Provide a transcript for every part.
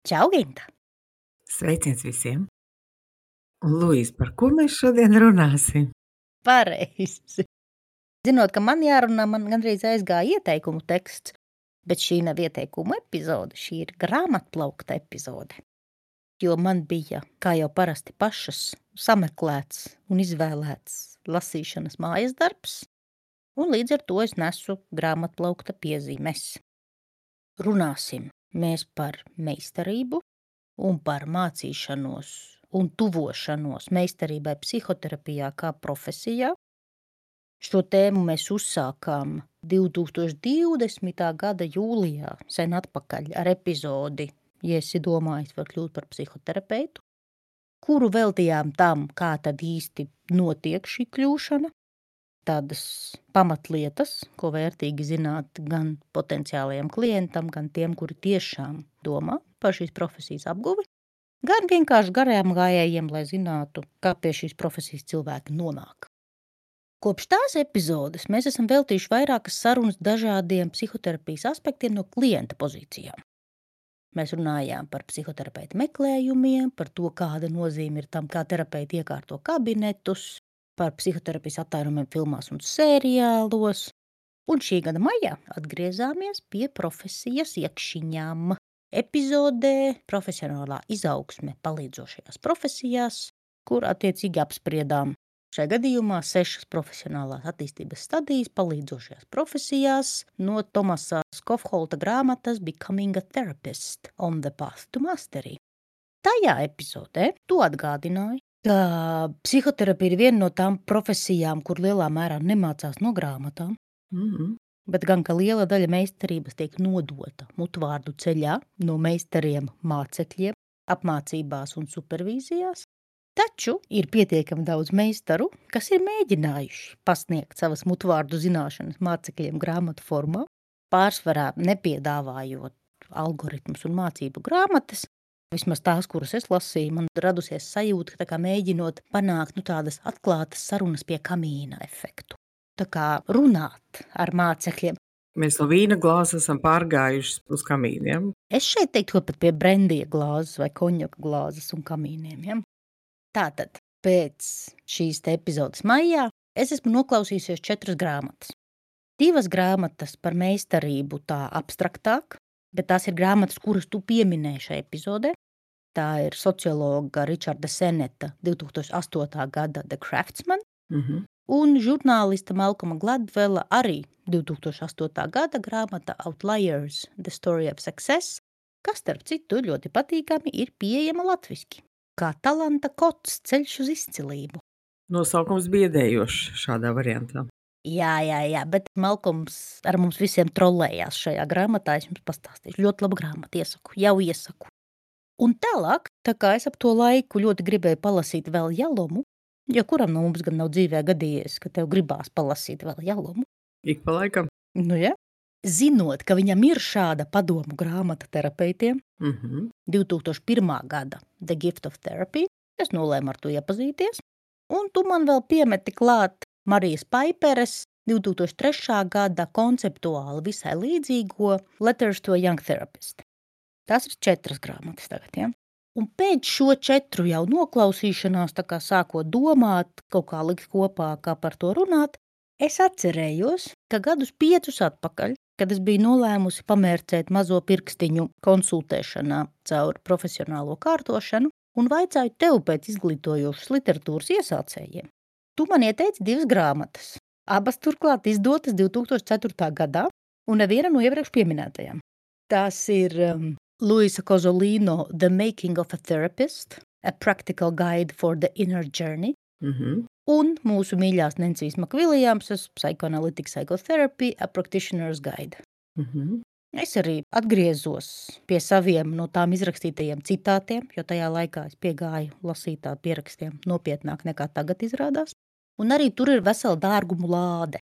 Čau, Ginta! Sveiciens visiem! Luīs, par ko mēs šodien runāsim? Pareizi. Zinot, ka man jārunā, man gandrīz aizgāja ieteikumu teksts, bet šī nav ieteikumu epizode, šī ir grāmatplaukta epizode. Jo man bija, kā jau parasti pašas, sameklēts un izvēlēts lasīšanas mājas darbs, un līdz ar to es nesu grāmatplaukta piezīmes. Runāsim mēs par meistarību un par mācīšanos un tuvošanos meistarībai psihoterapijā kā profesijā. Šo tēmu mēs uzsākām 2020. gada jūlijā, sen atpakaļ, ar epizodi, ja esi domājis, var kļūt par psihoterapeitu, kuru veltījām tam, kā tad īsti notiek šī kļūšana, tādas pamatlietas, ko vērtīgi zināt gan potenciālajiem klientam, gan tiem, kuri tiešām domā par šīs profesijas apguvi, gan vienkārši garajām gājējiem, lai zinātu, kā pie šīs profesijas cilvēki nonāk. Kopš tās epizodes mēs esam veltījuši vairākas sarunas dažādiem psihoterapijas aspektiem no klienta pozīcijām. Mēs runājām par psihoterapeita meklējumiem, par to, kāda nozīme ir tam, kā terapeiti iekārto kabinetus, par psihoterapijas attēlumiem filmās un seriālos. Un šī gada maijā atgriezāmies pie profesijas iekšiņām. Epizodē profesionālā izaugsme palīdzošajās profesijās, kur attiecīgi apspriedām šajā gadījumā 6 profesionālās attīstības stadijas palīdzošajās profesijās no Tomasa Skofholta grāmatas Becoming a Therapist on the Path to Mastery. Tajā epizodē tu atgādināji, ka psihoterapija ir viena no tām profesijām, kur lielā mērā nemācās no grāmatām. Bet gan, ka liela daļa meistarības tiek nodota mutvārdu ceļā no meistariem mācekļiem, apmācībās un supervīzijās. Taču ir pietiekami daudz meistaru, kas ir mēģinājuši pasniegt savas mutvārdu zināšanas mācekļiem grāmatu formā, pārsvarā nepiedāvājot algoritmus un mācību grāmatas. Vismaz tās, kuras es lasīju, man radusies sajūta, ka tā kā mēģinot panākt tādas atklātas sarunas pie kamīna efektu. Tā kā runāt ar mācekļiem. Mēs no vīna glāzes esam pārgājuši uz kamīniem. Es šeit teiktu, ka pat pie brendija glāzes vai konjaka glāzes un kamīniem. Ja? Tātad, pēc šīs te epizodes maijā es esmu noklausījusies 4 grāmatas. 2 grāmatas par meistarību tā abstraktāk, bet tās ir grāmatas, kuras tu pieminēji šajā epizodē. Tā ir sociologa Richarda Seneta 2008. gada The Craftsman. Un žurnālista Malcolma Gladwella arī 2008. gada grāmata Outliers, The Story of Success, kas, starp citu, ļoti patīkami ir pieejama latviski, kā talanta kods ceļš uz izcilību. Nosaukums biedējošs šādā variantā. Jā, bet Malcolms ar mums visiem trollējās šajā grāmatā, es jums pastāstīšu. Ļoti laba grāmata, iesaku. Un tālāk, tā kā es ap to laiku ļoti gribēju palasīt vēl Jalomu, jo kuram no mums gan nav dzīvē gadījies, ka tev gribās palasīt vēl Jalomu. Ik pa laikam. Nu ja. Zinot, ka viņam ir šāda padomu grāmata terapeitiem, 2001. gada The Gift of Therapy, es nolēmu ar to iepazīties, un tu man vēl piemeti klāt Marijas Paiperes 2003. gada konceptuāli visai līdzīgo Letters to a Young Therapist. Tās ir 4 grāmatas tagad, ja? Un pēc šo 4 jau noklausīšanās, tā kā sākot domāt, kaut kā likt kopā, kā par to runāt, es atcerējos, ka gadus 5 atpakaļ, kad es biju nolēmusi pamērcēt mazo pirkstiņu konsultēšanā caur profesionālo kārtošanu un vaicāju tev pēc izglītojošas literatūras iesācējiem. Tu man ieteici 2 grāmatas, abas turklāt izdotas 2004. gadā un neviena no iepriekš pieminētajām. Tās ir Luisa Kozolino The Making of a Therapist, A Practical Guide for the Inner Journey, un mūsu mīļās Nencijas Makviljamsas Psychoanalytic Psychotherapy, A Practitioner's Guide. Es arī atgriezos pie saviem no tām izrakstītajiem citātiem, jo tajā laikā es piegāju lasītā pierakstiem nopietnāk nekā tagad izrādās, un arī tur ir vesela dārgumu lāde.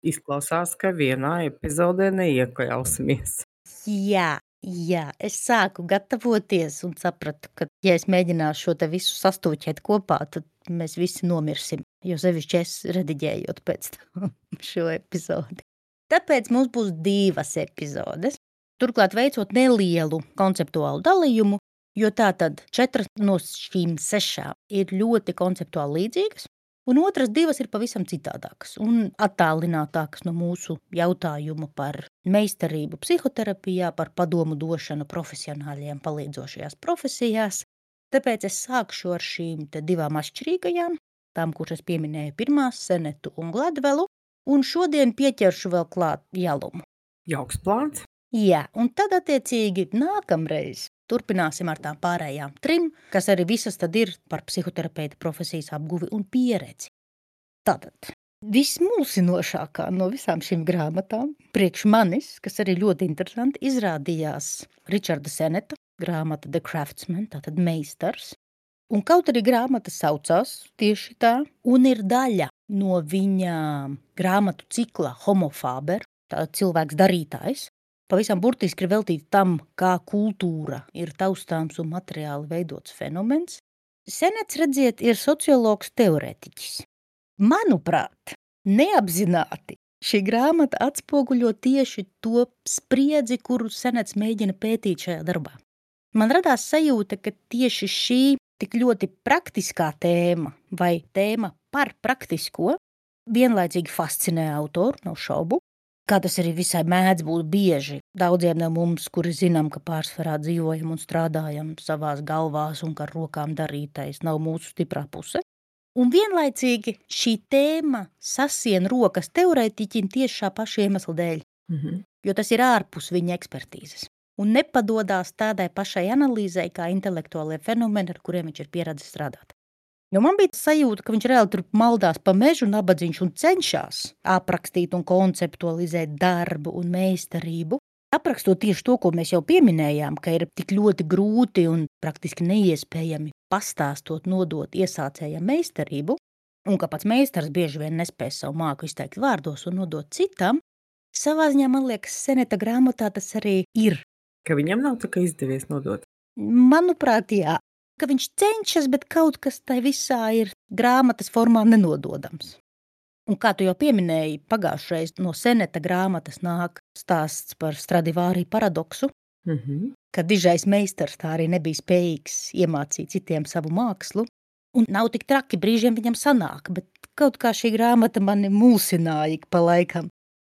Izklausās, ka vienā epizodē neiekļausimies. Jā, es sāku gatavoties un sapratu, ka, ja es mēģināšu šo te visu sastūķēt kopā, tad mēs visi nomirsim, jo sevišķi es rediģējot pēc tam šo epizodi. Tāpēc mums būs 2 epizodes, turklāt veicot nelielu konceptuālu dalījumu Jo tātad 4 no šīm 6 ir ļoti konceptuāli līdzīgas, un otras 2 ir pavisam citādākas un attālinātākas no mūsu jautājuma par meistarību psihoterapijā, par padomu došanu profesionāļiem palīdzošajās profesijās. Tāpēc es sākšu ar šīm 2 atšķirīgajām, tām, kuras es pieminēju pirmās, Senetu un Gladvelu, un šodien pieķeršu vēl klāt Jalumu. Jauks plāns. Jā, un tad attiecīgi nākamreiz turpināsim ar tām pārējām 3, kas arī visas tad ir par psihoterapeita profesijas apguvi un pieredzi. Tātad vismulsinošākā no visām šīm grāmatām priekš manis, kas arī ļoti interesanti, izrādījās Ričarda Seneta grāmata The Craftsman, tātad meistars. Un kaut arī grāmata saucās tieši tā, un ir daļa no viņa grāmatu cikla Homo Faber, tātad cilvēks darītājs, pavisam burtiski ir veltīta tam, kā kultūra ir taustāms un materiāli veidots fenomens. Senets, redziet, ir sociologs teorētiķis. Manuprāt, neapzināti šī grāmata atspoguļo tieši to spriedzi, kuru Senets mēģina pētīt šajā darbā. Man radās sajūta, ka tieši šī tik ļoti praktiskā tēma vai tēma par praktisko vienlaicīgi fascinē autoru, nav šaubu. Kā tas arī visai mēdz būt bieži. Daudziem no mums, kuri zinām, ka pārsvarā dzīvojam un strādājam savās galvās un ka ar rokām darītais nav mūsu stiprā puse. Un vienlaicīgi šī tēma sasien rokas teorētiķim tieši šā paša iemesla dēļ, jo tas ir ārpus viņa ekspertīzes. Un nepadodās tādai pašai analīzei kā intelektuālie fenomeni, ar kuriem viņš ir pieredzis strādāt. Jo man bija sajūta, ka viņš reāli tur maldās pa mežu nabadziņš un cenšas aprakstīt un konceptualizēt darbu un meistarību. Aprakstot tieši to, ko mēs jau pieminējām, ka ir tik ļoti grūti un praktiski neiespējami pastāstot, nodot iesācējam meistarību, un ka pats meistars bieži vien nespēj savu māku izteikt vārdos un nodot citam, savā ziņā, man liekas, Seneta grāmatā tas arī ir. Ka viņam nav tā kā izdevies nodot. Manuprāt, jā. Ka viņš cenšas, bet kaut kas tai visā ir grāmatas formā nenododams. Un kā tu jau pieminēji, pagājušreiz no Seneta grāmatas nāk stāsts par Stradivāri paradoksu, ka dižais meistars tā arī nebija spējīgs iemācīt citiem savu mākslu, un nav tik traki, brīžiem viņam sanāk, bet kaut kā šī grāmata mani mulsināja ik pa laikam.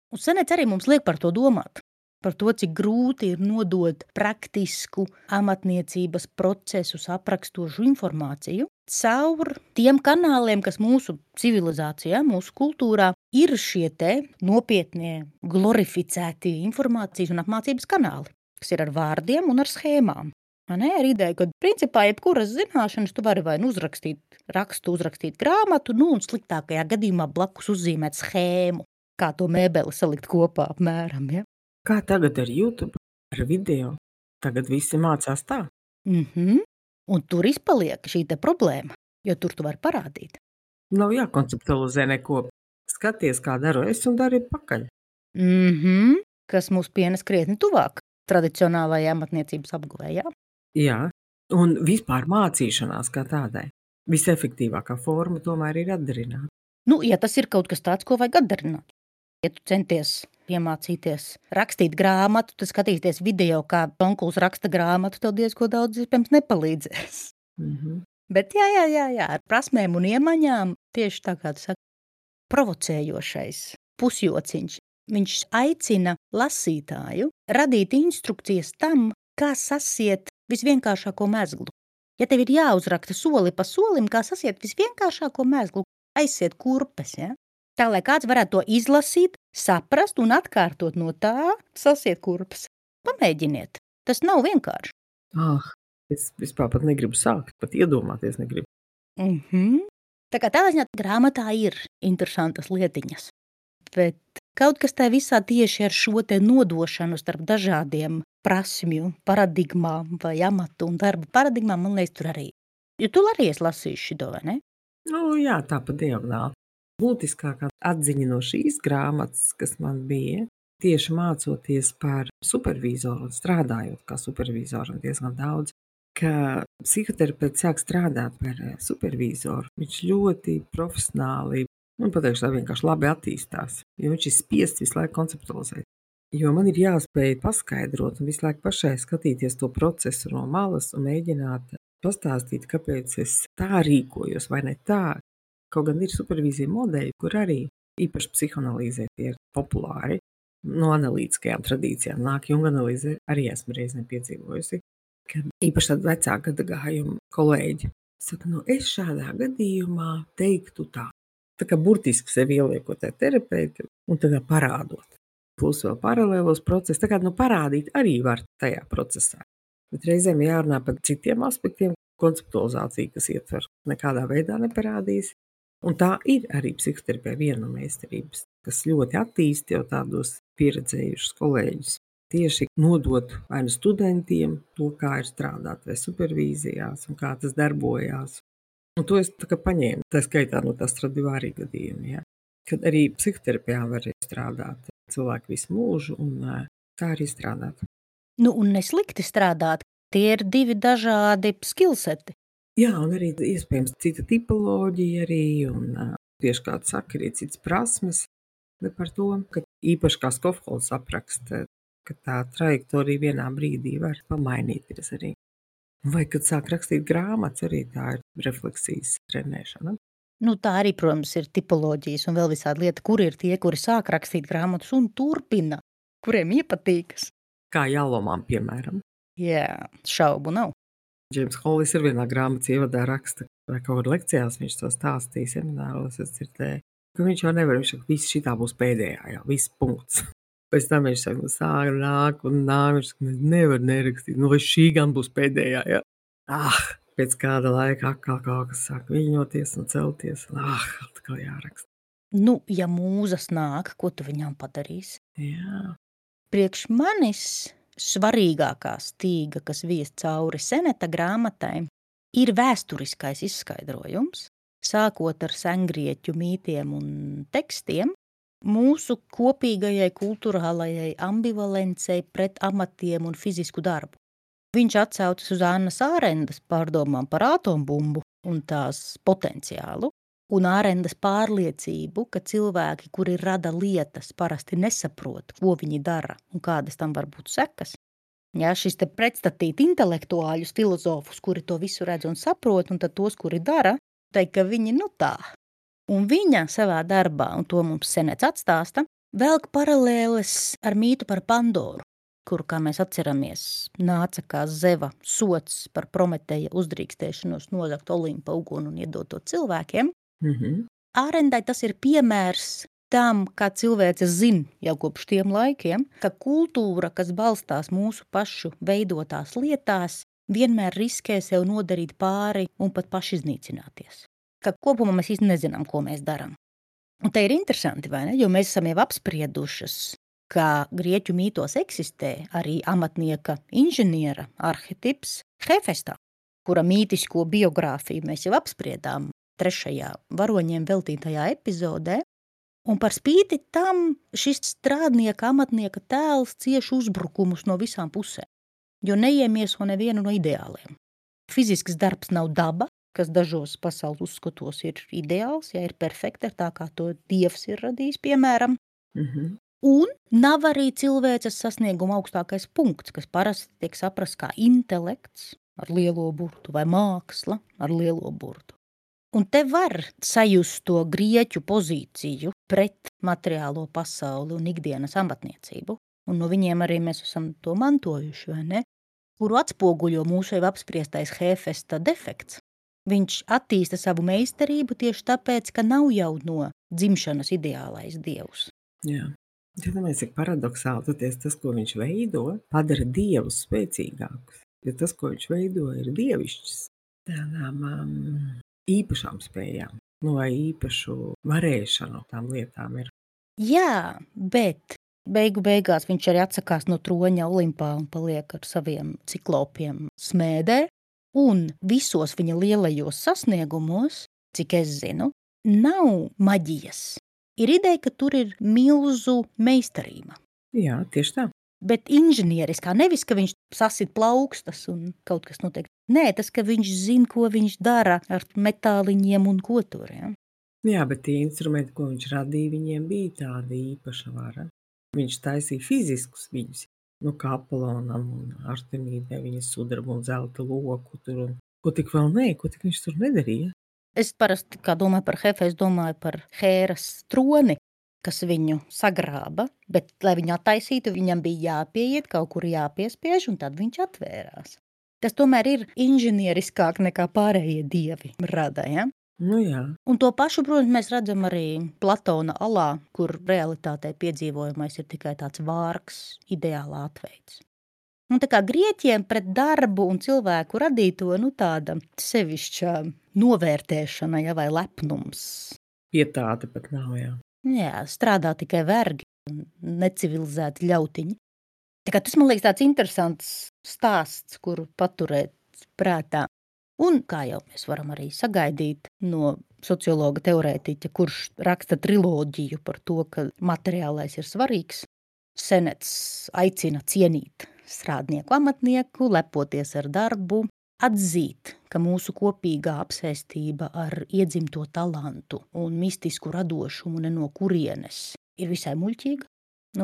Un Senets arī mums liek par to domāt. Par to, cik grūti ir nodot praktisku amatniecības procesus aprakstošu informāciju caur tiem kanāliem, kas mūsu civilizācijā, mūsu kultūrā ir šie te nopietnie, glorificēti informācijas un apmācības kanāli, kas ir ar vārdiem un ar schēmām. Ar ideju, ka principā jebkuras zināšanas tu vari vai uzrakstīt rakstu, uzrakstīt grāmatu, un sliktākajā gadījumā blakus uzzīmēt schēmu, kā to mēbeli salikt kopā apmēram, ja? Kā tagad ar YouTube, ar video? Tagad visi mācās tā. Un tur izpaliek šī te problēma, jo tur tu vari parādīt. Nav jākonceptualizē neko. Skaties, kā daru es un dari pakaļ. Kas mūs pienes krietni tuvāk tradicionālajai amatniecības apguvējā. Jā, un vispār mācīšanās kā tādai. Visefektīvākā forma tomēr ir atdarināt. Ja tas ir kaut kas tāds, ko vajag atdarināt. Ja tu centies iemācīties rakstīt grāmatu, tad skatīties video, kā onkuls raksta grāmatu, tev diezko daudz iespējams nepalīdzēs. Bet jā, ar prasmēm un iemaņām tieši tā kā tu saki, provocējošais pusjociņš. Viņš aicina lasītāju radīt instrukcijas tam, kā sasiet visvienkāršāko mezglu. Ja tev ir jāuzraksta soli pa solim, kā sasiet visvienkāršāko mezglu, aiziet kurpes, ja? Tā, lai kāds varētu to izlasīt, saprast un atkārtot no tā, sasiet kurpes. Pamēģiniet. Tas nav vienkārši. Es vispār pat negribu sākt, pat iedomāties negribu. Tā kā tādā ziņā grāmatā ir interesantas lietiņas. Bet kaut kas tā visā tieši ar šo te nodošanu starp dažādiem prasmju paradigmām vai amatu un darbu paradigmām, man liekas, tur arī. Jo tu arī esi lasījis šito, vai ne? Jā, tā pa diagonāli. Būtiskākā atziņa no šīs grāmatas, kas man bija, tieši mācoties par supervizoru un strādājot kā supervizoram diezgan daudz, ka psihoterapeits sāk strādāt par supervizoru. Viņš ļoti profesionāli, pateikšu tā vienkārši labi attīstās, jo viņš ir spiests visu laiku konceptualizēt. Jo man ir jāspēj paskaidrot un visu laiku pašai skatīties to procesu no malas un mēģināt pastāstīt, kāpēc es tā rīkojos vai ne tā. Kaut gan ir supervīzija modeļi, kur arī īpaši psihoanalīzē tie ir populāri. No analītiskajām tradīcijām nāk Junga analīze, arī esmu reizēm piedzīvojusi, ka īpaši tādi vecāka gadagājuma kolēģi saka, es šādā gadījumā teiktu tā. Tā kā burtiski sevi ieliekot tā terapeiti un tā kā parādot. Plus vēl paralēlos procesus, tā kā parādīt arī var tajā procesā. Bet reizēm jārunā par citiem aspektiem, konceptualizācija, kas ietver nekādā veidā neparādīs. Un tā ir arī psihoterapija viena no meistarības, kas ļoti attīsta jau tādos pieredzējušus kolēģus. Tieši nodot vai nu studentiem to, kā ir strādāt, vai supervīzijās, un kā tas darbojās. Un to es tā kā paņēmu, tā skaitā no tā Stradivāri gadījuma, ja? Kad arī psihoterapijā var strādāt cilvēki visu mūžu, un tā arī strādāt. Nu, un neslikti strādāt, tie ir divi dažādi skillseti. Jā, un arī iespējams cita tipoloģija arī, un tieši kā tu saki, arī citas prasmes, bet par to, ka īpaši kā Skofholds apraksta, ka tā trajektorija vienā brīdī var pamainīties arī. Vai kad sāk rakstīt grāmatas, arī tā ir refleksijas trenēšana. Nu, tā arī, protams, ir tipoloģijas un vēl visādi lieta, kur ir tie, kuri sāk rakstīt grāmatas un turpina, kuriem iepatīkas. Kā Jālomām, piemēram. Jā, šaubu nav. Džeims Hollis ir vienā grāmatas ievadā raksta, vai kaut kur lekcijās viņš to stāstīja, semināros es dzirdēju, ka viņš jau nevar, viņš saka, viss šitā būs pēdējā, jā, viss punkts. Pēc tam viņš saka, sāk nāk, viņš saka, nevar nerakstīt, vai šī gan būs pēdējā, jā. Pēc kāda laika atkal kaut kas sāk viņoties un celties, un atkal jāraksta. Nu, ja mūzas nāk, ko tu viņām padarīsi? Jā. Priekš manis svarīgākā stīga, kas vies cauri Seneta grāmatai, ir vēsturiskais izskaidrojums, sākot ar sengrieķu mītiem un tekstiem, mūsu kopīgajai kultūrālajai ambivalencei pret amatiem un fizisku darbu. Viņš atsaucas uz Annas Ārendas pārdomām par atombumbu un tās potenciālu, un Ārendas pārliecību, ka cilvēki, kuri rada lietas, parasti nesaprot, ko viņi dara un kādas tam var būt sekas. Jā, šis te pretstatīt intelektuāļus, filozofus, kuri to visu redz un saprot, un tad tos, kuri dara, teikt, ka viņi tā. Un viņa savā darbā, un to mums Senets atstāsta, velk paralēles ar mītu par Pandoru, kuru, kā mēs atceramies, nāca kā Zeva sots par Prometeja uzdrīkstēšanos nozagt Olimpa uguni un iedot to cilvēkiem. Ārendai tas ir piemērs tam, kā cilvēce zina jau kopš tiem laikiem, ka kultūra, kas balstās mūsu pašu veidotās lietās, vienmēr riskē sev nodarīt pāri un pat pašiznīcināties. Ka kopumā mēs īsti nezinām, ko mēs darām. Un te ir interesanti, vai ne? Jo mēs esam jau apspriedušas, ka grieķu mītos eksistē arī amatnieka inženiera arhetips Hefestā, kura mītisko biogrāfiju mēs jau apspriedām 3. varoņiem veltītajā epizodē, un par spīti tam šis strādnieka, amatnieka tēls cieš uzbrukumus no visām pusēm, jo neiemieso nevienu no ideāliem. Fizisks darbs nav daba, kas dažos pasaules uzskatos ir ideāls, ja ir perfekta, tā kā to Dievs ir radījis, piemēram. Un nav arī cilvēces sasnieguma augstākais punkts, kas parasti tiek saprasts kā intelekts ar lielo burtu vai māksla ar lielo burtu. Un te var sajust to grieķu pozīciju pret materiālo pasauli un ikdienas amatniecību, un no viņiem arī mēs esam to mantojuši, vai ne? Kuru atspoguļo mūsu jau apspriestais Hefesta defekts. Viņš attīsta savu meistarību tieši tāpēc, ka nav jau no dzimšanas ideālais dievs. Jā. Domāju, cik paradoxāli tas, ko viņš veido, padara dievus spēcīgākus. Jo tas, ko viņš veido, ir dievišķis. Tādām īpašām spējām, vai īpašu varēšanu tām lietām ir. Jā, bet beigās viņš arī atsakās no troņa Olimpā un paliek ar saviem ciklopiem smēdē, un visos viņa lielajos sasniegumos, cik es zinu, nav maģijas. Ir ideja, ka tur ir milzu meistarība. Jā, tieši tā. Bet inženieriskā, nevis, ka viņš sasit plaukstas un kaut kas notiek. Nē, tas, ka viņš zina, ko viņš dara ar metāliņiem un ko tur. Ja? Jā, bet tie instrumenti, ko viņš radīja, viņiem bija tāda īpaša vara. Viņš taisīja fiziskus viņus, kā Apolonam un Artemīdai, viņas sudraba un zelta loku tur un ko tik vēl ko tik viņš tur nedarīja. Es parasti, kā domāju par Hefestu, domāju par Hēras troni, kas viņu sagrāba, bet, lai viņu attaisītu, viņam bija jāpieiet, kaut kur jāpiespiež, un tad viņš atvērās. Tas tomēr ir inženieriskāk nekā pārējie dievi rada, ja? Nu jā. Un to pašu, protams, mēs redzam arī Platona alā, kur realitātē piedzīvojamais ir tikai tāds vārgs, ideālā atveids. Un tā kā grieķiem pret darbu un cilvēku radīto, tāda sevišķa novērtēšana, ja, vai lepnums. Pietāte pat nav, jā. Jā, strādā tikai vergi un necivilizēti ļautiņi. Tā kā tas, man liekas, tāds interesants stāsts, kuru paturēt prātā. Un kā jau mēs varam arī sagaidīt no sociologa teorētiķa, kurš raksta triloģiju par to, ka materiālais ir svarīgs, Senets aicina cienīt strādnieku amatnieku, lepoties ar darbu, atzīt, ka mūsu kopīgā apsēstība ar iedzimto talantu un mistisku radošumu ne no kurienes ir visai muļķīga,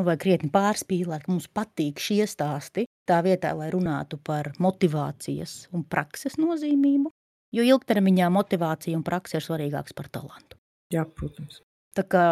vai krietni pārspīlēt, ka mums patīk šie stāsti, tā vietā, lai runātu par motivācijas un prakses nozīmību, jo ilgtermiņā motivācija un prakse ir svarīgāks par talantu. Jā, protams. Tā kā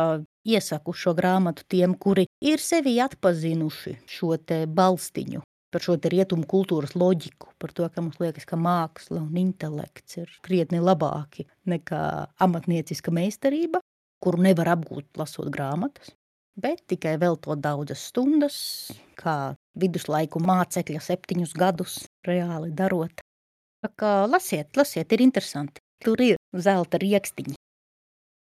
iesaku šo grāmatu tiem, kuri ir sevi atpazinuši šo te balstiņu, par šo te rietumu kultūras loģiku, par to, ka mums liekas, ka māksla un intelekts ir krietni labāki nekā amatnieciska meistarība, kuru nevar apgūt lasot grāmatas, bet tikai veltot daudzas stundas, kā viduslaiku mācekļa 7 gadus reāli darot. Tā kā lasiet, ir interesanti. Tur ir zelta riekstiņi.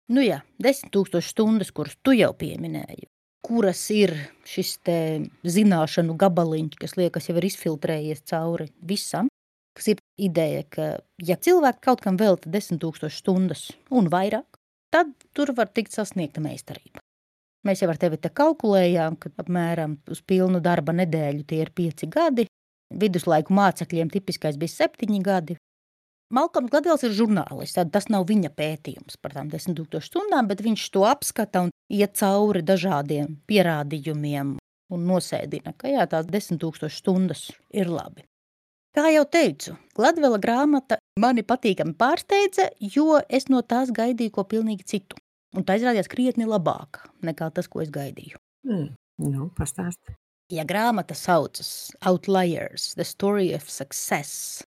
10 000 stundas, kuras tu jau pieminēji, kuras ir šis te zināšanu gabaliņš, kas liekas jau ir izfiltrējies cauri visam, kas ir ideja, ka ja cilvēki kaut kam velta 10 000 stundas un vairāk, tad tur var tikt sasniegta meistarība. Mēs jau ar tevi te kalkulējām, ka apmēram uz pilnu darba nedēļu tie ir 5 gadi, viduslaiku mācekļiem tipiskais bija 7 gadi. Malkolms Gladvels ir žurnālists, tad tas nav viņa pētījums par tām 10 000 stundām, bet viņš to apskata un iet cauri dažādiem pierādījumiem un nosēdina, ka jā, tās 10 000 stundas ir labi. Kā jau teicu, Gladvela grāmata mani patīkami pārsteidza, jo es no tās gaidīju ko pilnīgi citu. Un tā izrādījās krietni labāka nekā tas, ko es gaidīju. Pastāsti. Ja grāmata saucas Outliers, The Story of Success,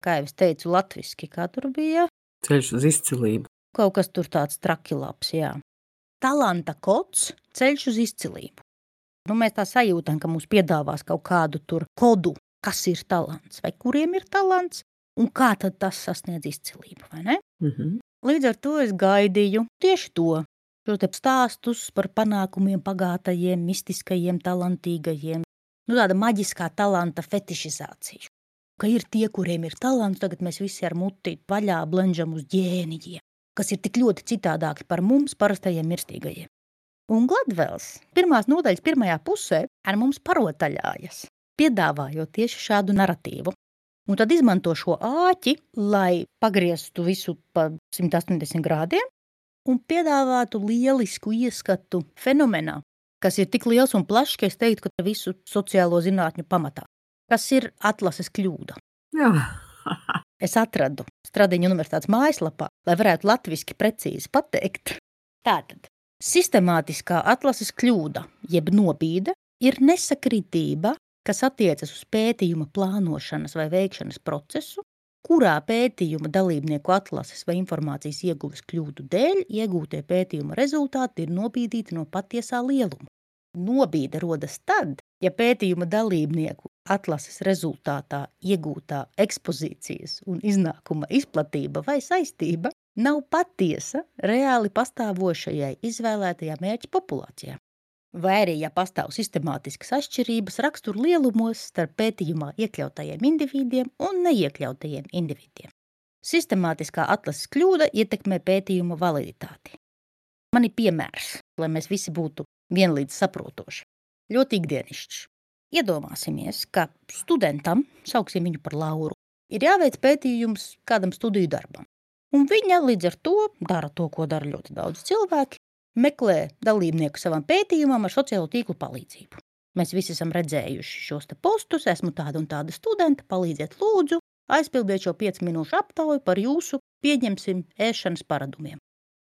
kā jau es teicu latviski, kā tur bija? Ceļš uz izcilību. Kaut kas tur tāds trakilabs, jā. Talanta kods, ceļš uz izcilību. Mēs tā sajūtam, ka mums piedāvās kaut kādu tur kodu, kas ir talants, vai kuriem ir talants, un kā tad tas sasniedz izcilību, vai ne? Līdz ar to es gaidīju tieši to, šo te stāstus par panākumiem pagātajiem, mistiskajiem, talantīgajiem, tāda maģiskā talanta fetišizāciju. Ka ir tie, kuriem ir talants, tagad mēs visi ar muti vaļā blenžam uz ģēnijiem, kas ir tik ļoti citādāki par mums, parastajiem mirstīgajiem. Un Gladvels pirmās nodaļas pirmajā pusē ar mums parotaļājas, piedāvājot tieši šādu naratīvu. Un tad izmanto šo āķi, lai pagrieztu visu pa 180 grādiem un piedāvātu lielisku ieskatu fenomenā, kas ir tik liels un plašs, ka es teiktu, ka visu sociālo zinātņu pamatā, kas ir atlases kļūda. Jā. Es atradu Stradiņu universitātes mājaslapā, lai varētu latviski precīzi pateikt. Tātad, sistemātiskā atlases kļūda, jeb nobīde, ir nesakritība, kas attiecas uz pētījuma plānošanas vai veikšanas procesu, kurā pētījuma dalībnieku atlases vai informācijas ieguves kļūdu dēļ iegūtie pētījuma rezultāti ir nobīdīti no patiesā lieluma. Nobīde rodas tad, ja pētījuma dalībnieku atlases rezultātā iegūtā ekspozīcijas un iznākuma izplatība vai saistība nav patiesa reāli pastāvošajai izvēlētajā mērķa populācijā. Vai arī, ja pastāv sistemātiskas atšķirības rakstura lielumos starp pētījumā iekļautajiem individiem un neiekļautajiem individiem. Sistemātiskā atlases kļūda ietekmē pētījuma validitāti. Man ir piemērs, lai mēs visi būtu vienlīdz saprotoši. Ļoti ikdienišķs. Iedomāsimies, ka studentam, sauksim viņu par Lauru, ir jāveic pētījums kādam studiju darbam. Un viņa līdz ar to dara to, ko dara ļoti daudz cilvēki, meklē dalībnieku savam pētījumam ar sociālo tīklu palīdzību. Mēs visi esam redzējuši šos te postus, esmu tāda un tāda studenta, palīdziet lūdzu, aizpildiet šo 5 minūšu aptauju par jūsu, pieņemsim, ēšanas paradumiem.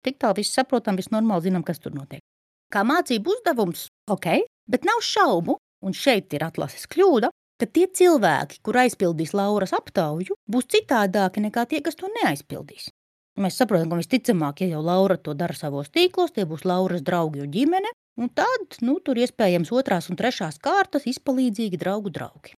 Tik tālu viss saprotam, viss normāli zinām, kas tur notiek. Kā mācību uzdevums, ok, bet nav šaubu, un šeit ir atlases kļūda, ka tie cilvēki, kur aizpildīs Lauras aptauju, būs citādāki nekā tie, kas to neaizpildīs. Mēs saprotam, ka visticamāk, ja jau Laura to dara savos tīklos, tie būs Lauras draugi un ģimene, un tad, tur iespējams 2. un 3. kārtas izpalīdzīgi draugi.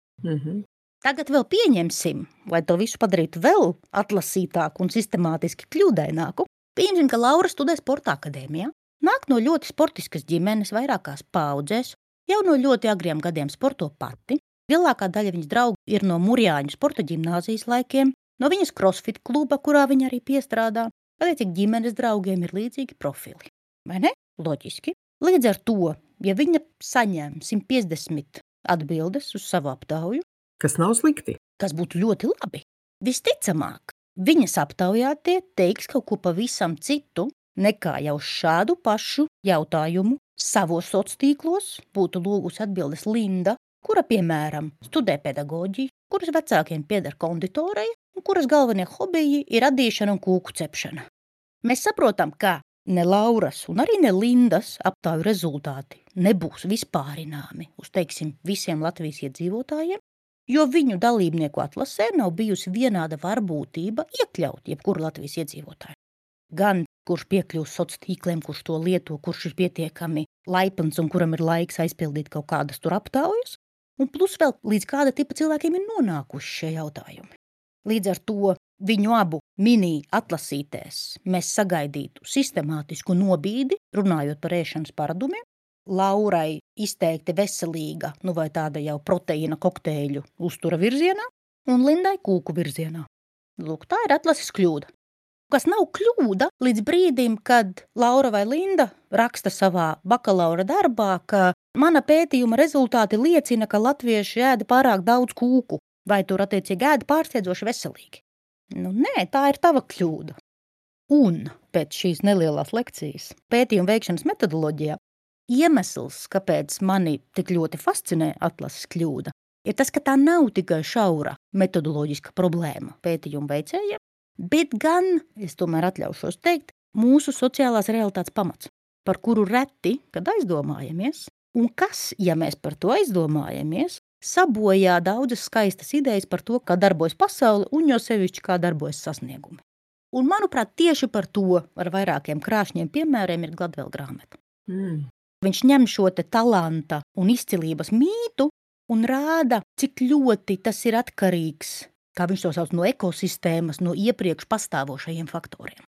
Tagad vēl pieņemsim, lai to visu padarītu vēl atlasītāku un sistemātiski kļūdaināku, pieņemsim, ka Laura studē sporta akadēmijā, nāk no ļoti sportiskas ģimenes vairākās paudzēs, jau no ļoti agriem gadiem sporto pati, lielākā daļa viņas draugu ir no Murjāņu sporta ģimnāzijas laikiem, no viņas crossfit kluba, kurā viņa arī piestrādā, attiecīgi ģimenes draugiem ir līdzīgi profili. Vai ne? Loģiski. Līdz ar to, ja viņa saņem 150 atbildes uz savu aptauju, kas nav slikti, kas būtu ļoti labi, visticamāk, viņas aptaujātie teiks kaut ko pavisam citu, nekā jau šādu pašu jautājumu savos sociālos tīklos būtu lūgusi atbildes Linda, kura, piemēram, studē pedagoģiju, kuras vecākiem pieder konditoreja un kuras galvenie hobiji ir radīšana un kūku cepšana. Mēs saprotam, ka ne Lauras un arī ne Lindas aptauju rezultāti nebūs vispārināmi uz, teiksim, visiem Latvijas iedzīvotājiem, jo viņu dalībnieku atlasē nav bijusi vienāda varbūtība iekļaut jebkuru Latvijas iedzīvotāju. Gan kurš piekļūst sociāliem tīkliem, kurš to lieto, kurš ir pietiekami laipns un kuram ir laiks aizpildīt kaut kādas tur aptaujas, un plus vēl līdz kāda tipa cilvēkiem ir nonākuši šie jautājumi. Līdz ar to viņu abu mini atlasītēs mēs sagaidītu sistemātisku nobīdi, runājot par ēšanas paradumiem, Laurai izteikti veselīga, vai tāda jau proteīna kokteļu uztura virzienā, un Lindai kūku virzienā. Lūk, tā ir atlases kļūda. Kas nav kļūda līdz brīdim, kad Laura vai Linda raksta savā bakalaura darbā, ka mana pētījuma rezultāti liecina, ka latvieši ēda pārāk daudz kūku, vai tur attiecīgi ēda pārsteidzoši veselīgi. Nē, tā ir tava kļūda. Un pēc šīs nelielās lekcijas pētījuma veikšanas metodoloģijā iemesls, kāpēc mani tik ļoti fascinē atlases kļūda, ir tas, ka tā nav tikai šaura metodoloģiska problēma pētījuma veicējiem, bet gan, es tomēr atļaušos teikt, mūsu sociālās realitātes pamats, par kuru reti, kad aizdomājamies, un kas, ja mēs par to aizdomājamies, sabojā daudzas skaistas idejas par to, kā darbojas pasaule un jo sevišķi kā darbojas sasniegumi. Un, manuprāt, tieši par to ar vairākiem krāšņiem piemēriem ir Gladwell grāmata. Viņš ņem šo te talanta un izcilības mītu un rāda, cik ļoti tas ir atkarīgs, kā viņš to sauc, no ekosistēmas, no iepriekš pastāvošajiem faktoriem.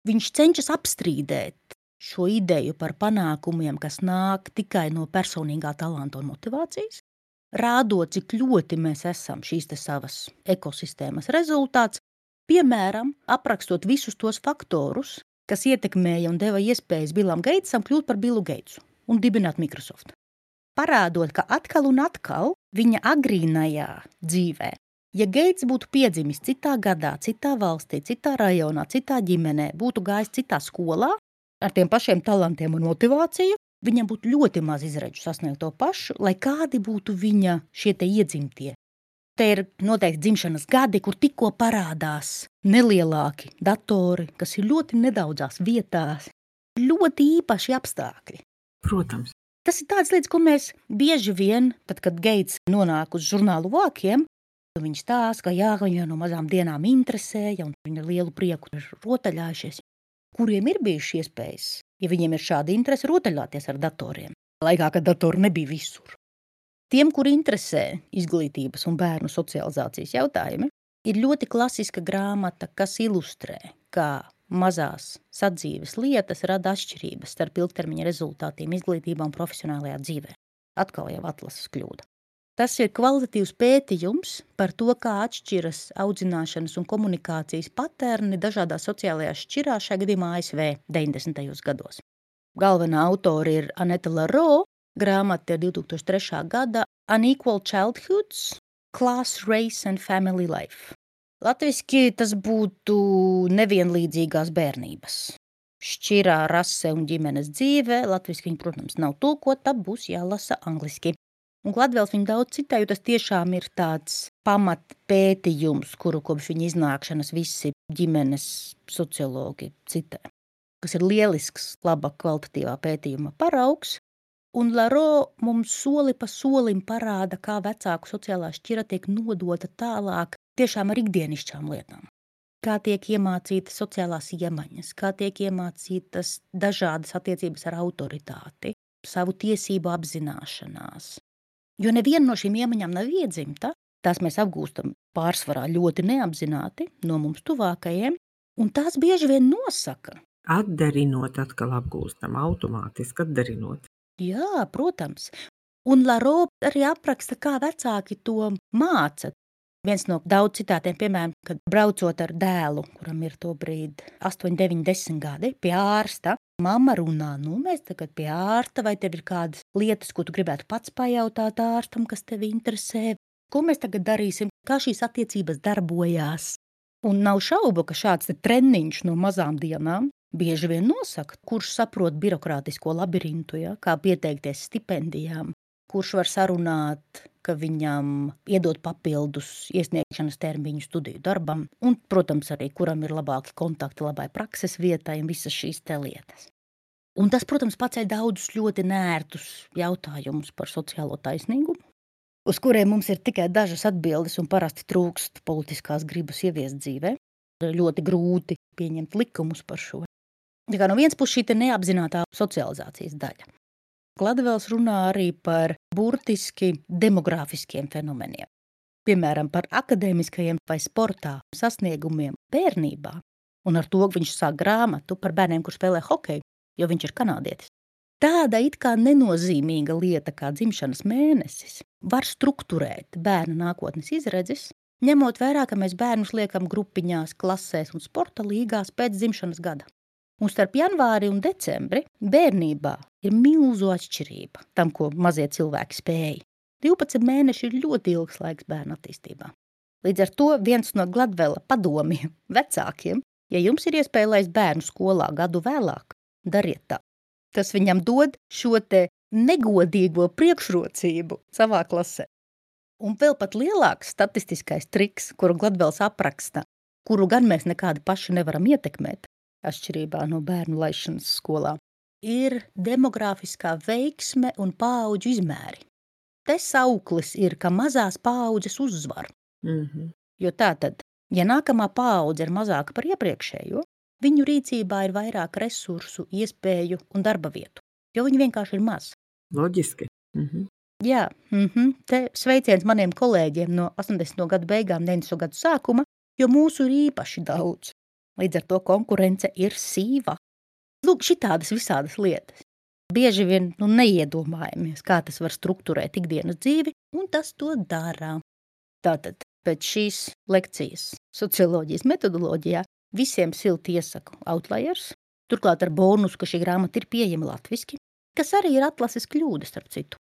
Viņš cenšas apstrīdēt šo ideju par panākumiem, kas nāk tikai no personīgā talanta un motivācijas, rādot, cik ļoti mēs esam šīs te savas ekosistēmas rezultāts, piemēram, aprakstot visus tos faktorus, kas ietekmēja un deva iespējas Billam Geitsam kļūt par Billu Geitsu un dibināt Microsoft. Parādot, ka atkal un atkal viņa agrīnajā dzīvē, ja Geits būtu piedzimis citā gadā, citā valstī, citā rajonā, citā ģimenē, būtu gājis citā skolā, ar tiem pašiem talantiem un motivāciju, viņam būtu ļoti maz izredzu sasniegt to pašu, lai kādi būtu viņa šie te iedzimtie. Te ir noteikti dzimšanas gadi, kur tikko parādās nelielāki datori, kas ir ļoti nedaudzās vietās, ļoti īpaši apstākļi. Protams. Tas ir tāds lietas, ko mēs bieži vien, tad, kad Geits nonāk uz žurnālu vākiem, viņš stāsta, ka jā, viņa no mazām dienām interesēja un viņa lielu prieku ir rotaļājušies, kuriem ir bijuši iespējas, ja viņiem ir šāda interese, rotaļāties ar datoriem, laikā, kad datori nebija visur. Tiem, kuri interesē izglītības un bērnu socializācijas jautājumi, ir ļoti klasiska grāmata, kas ilustrē, kā mazās sadzīves lietas rada atšķirības starp ilgtermiņa rezultātiem izglītībā un profesionālajā dzīvē. Atkal jau atlases kļūda. Tas ir kvalitatīvs pētījums par to, kā atšķiras audzināšanas un komunikācijas paterni dažādās sociālajās šķirās, šajā gadījumā ASV 90. gados. Galvenā autori ir Aneta Laro, grāmata ir 2003. gada Unequal Childhoods, Class, Race and Family Life. Latviski tas būtu nevienlīdzīgās bērnības. šķirā, rase un ģimenes dzīve. Latviski viņa, protams, nav tulkota, būs jālasa angliski. Un Gladvēls viņa daudz citē, jo tas tiešām ir tāds pamatpētījums, kuru kopš viņa iznākšanas visi ģimenes sociologi citē. Kas ir lielisks, laba kvalitatīvā pētījuma paraugs. Un Laro mums soli pa solim parāda, kā vecāku sociālā šķira tiek nodota tālāk tiešām ar ikdienišķām lietām. Kā tiek iemācītas sociālās iemaņas, kā tiek iemācītas dažādas attiecības ar autoritāti, savu tiesību apzināšanās. Jo neviena no šīm iemaņām nav iedzimta, tās mēs apgūstam pārsvarā ļoti neapzināti no mums tuvākajiem, un tās bieži vien nosaka. Atdarinot atkal apgūstam, automātiski atdarinot. Jā, protams. Un Laro arī apraksta, kā vecāki to māca. Viens no daudz citātiem, piemēram, kad braucot ar dēlu, kuram ir to brīdi 8, 9, 10 gadi, pie ārsta, mamma runā, mēs tagad pie ārsta, vai tev ir kādas lietas, ko tu gribētu pats pajautāt ārstam, kas tevi interesē, ko mēs tagad darīsim, kā šīs attiecības darbojās. Un nav šaubu, ka šāds treniņš no mazām dienām bieži vien nosaka, kurš saprot birokrātisko labirintu, kā pieteikties stipendijām, kurš var sarunāt, ka viņam iedod papildus iesniegšanas termiņu studiju darbam, un, protams, arī kuram ir labāki kontakti labai prakses vietai un visas šīs te lietas. Un tas, protams, paceļ daudzus ļoti nērtus jautājumus par sociālo taisnīgumu, uz kuriem mums ir tikai dažas atbildes un parasti trūkst politiskās gribas ieviest dzīvē. Ļoti grūti pieņemt likumus par šo. Tā kā no vienas puses šī neapzinātā socializācijas daļa. Gladvēls runā arī par burtiski demogrāfiskiem fenomeniem. Piemēram, par akadēmiskajiem vai sportā sasniegumiem bērnībā. Un ar to viņš sāk grāmatu par bērniem, kur spēlē hokeju, jo viņš ir kanādietis. Tāda it kā nenozīmīga lieta kā dzimšanas mēnesis var strukturēt bērna nākotnes izredzes, ņemot vērā, ka mēs bērnus liekam grupiņās, klasēs un sporta līgās pēc dzimšanas gada. Un starp janvāri un decembri bērnībā ir milzu atšķirība tam, ko mazie cilvēki spēja. 12 mēneši ir ļoti ilgs laiks bērnu attīstībā. Līdz ar to viens no Gladvela padomiem vecākiem, ja jums ir iespēja laist bērnu skolā gadu vēlāk, dariet tā. Tas viņam dod šo te negodīgo priekšrocību savā klasē. Un vēl pat lielāks statistiskais triks, kuru Gladvels apraksta, kuru gan mēs nekādi paši nevaram ietekmēt, atšķirībā no bērnu laišanas skolā, ir demogrāfiskā veiksme un paauģu izmēri. Te sauklis ir, ka mazās paaudzes uzvar. Jo tātad, ja nākamā paudze ir mazāka par iepriekšējo, viņu rīcībā ir vairāk resursu, iespēju un darba vietu, jo viņi vienkārši ir maz. Loģiski. Jā, te sveiciens maniem kolēģiem no 80. gadu beigām, 90. gadu sākuma, jo mūsu ir īpaši daudz. Līdz ar to konkurence ir sīva. Lūk, šitādas visādas lietas. Bieži vien neiedomājamies, kā tas var strukturēt ikdienas dzīvi, un tas to dara. Tātad, pēc šīs lekcijas socioloģijas metodoloģijā visiem silti iesaku Outliers, turklāt ar bonusu, ka šī grāmata ir pieejama latviski, kas arī ir atlases kļūda, starp citu.